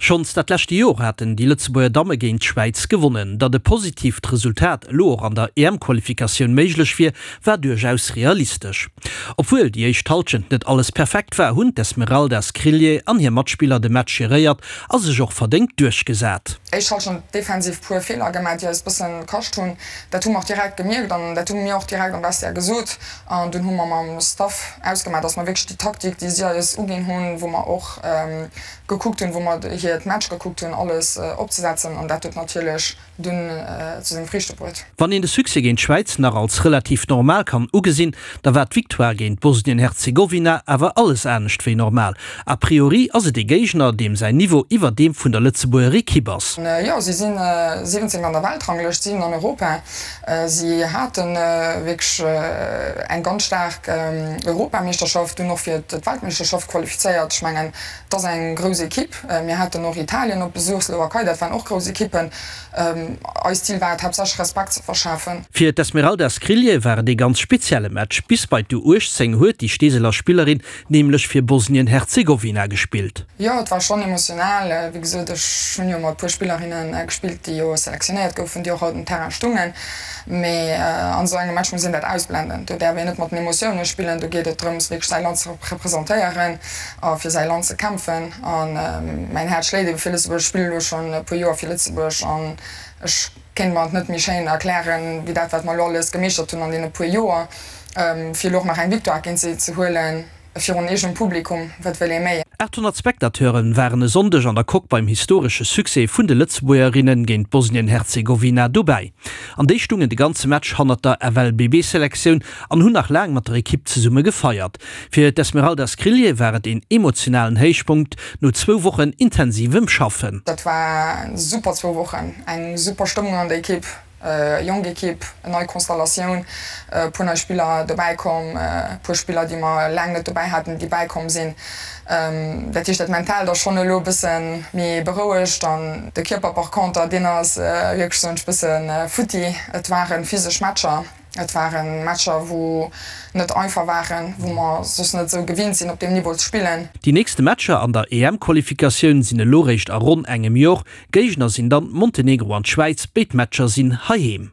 Schonns dat leschte Jor haten déi Lëtzebuerger Damme géint d'Schwäiz gewonnen. Datt e positiivt Resultat elo och an der EM-Qualifikatioun méiglech wier, war duerchaus realistesch. Obwuel déi éischt Hallschent net alles perfekt war, hunn d'Esmeralda Skrilje an hir Matspiller de Match geréiert a sech och verdéngt duerchgesat. Éischt Hallschent defensiv puer Feeler gemaach, déi eis bëssen kascht hunn. Dat hu mer och direkt gemierkt an dat hu mir och direkt am Vestiaire gesot. An dunn hu mer mam Staff ausgemaach, dass mer wierklech déi Taktik, déi si eis uginn hunn, wou mer och gekuckt hunn, wou mer hiert Match gekuckt hunn, alles opzesetzen. An dat huet natierlech dunn zu senge Friichte bruet. Wann een de Succès géint d'Schwäiz nach als relativ normal kann ugesinn, da war d'Victoire géint Bosnien-Herzegowina awer alles anescht wéi normal. A priori ass et ee Géigner, deem säin Niveau iwwer deem vun der Lëtzebuerger Ekipp ass. Jo, si si 17. an der Weltranglëscht, 7 an Europa. Si hate wierklech eng ganz staark Europameeschterschaft, dunn och fir d'Weltmeeschterschaft qualifizéiert. Ech mengen, et ass eng grouss Ekipp. Mir haten och Italien op Besuch, Slowakei, dat waren och grouss Ekippen. Eist Zil war et haaptsächlech Respekt ze verschafen. Fir d'Esmeralda Skrilje war et ee ganz spezielle Match. Bis bei d'U18 huet déi Steeseler Spillerin nämlech fir Bosnien-Herzegowina gespillt. Jo, et war schonn emotional. Wéi gesot, ech hunn jo mat puer Spillerinne gespillt, déi jo selektionéiert goufen, déi och haut um Terrain stungen. Mee an esou engem Match muss een dat ausblenden. Do däerf een net mat den Emotioune spillen. Do geet et drëms, wierklech säi Land ze representéieren a fir säi Land ze kämpfen. A mäin Häerz schléit ebe fir Lëtzebuerg. Ech spille elo schonn e puer Joer fir Lëtzebuerg an ech kéint mer et net méi schéin erklären, wéi dat, wat mer elo alles gemeeschtert hunn an deene puer Joer. Fir elo och nach eng Victoire géint si ze huelen, virun eegenem Publikum, wat wëll ee méi? 800 Spectateure waren e Sonndeg an der Coque beim historesche Succès vun de Lëtzebuergerinne géint Bosnien-Herzegowina dobäi. An déi stungen de ganze Match hannert der FLBB-Selektioun an hunn nach laang mat der Ekipp zesumme gefeiert. Fir d'Esmeralda Skrilje war et een emotionalen Héichpunkt no zwou Wochen intensivem Schaffen. Dat war super zwou Wochen, eng super Stëmmung an der Ekipp. Jonk Ekipp, nei Konstellatioun, e puer nei Spiller dobäi komm, e puer Spiller déi mer laang net dobäi haten, déi bäikomm sinn. Dat heescht dat Mentaalt ass schonn elo e bësse méi berouegt an de Kierper par conter deen ass wierklech soen ech bësse futti. Et ware physesch Matcher, et ware Matcher wou net einfach waren, wou mer soss net esou gewinnt sinn op deem Niveau ze spillen. Déi nächste Matcher an der EM-Qualifikatioun sinn elo réischt a ronn engem Jor. Géigner sinn dann Montenegro an d'Schwäiz, béid Matcher sinn heiheem.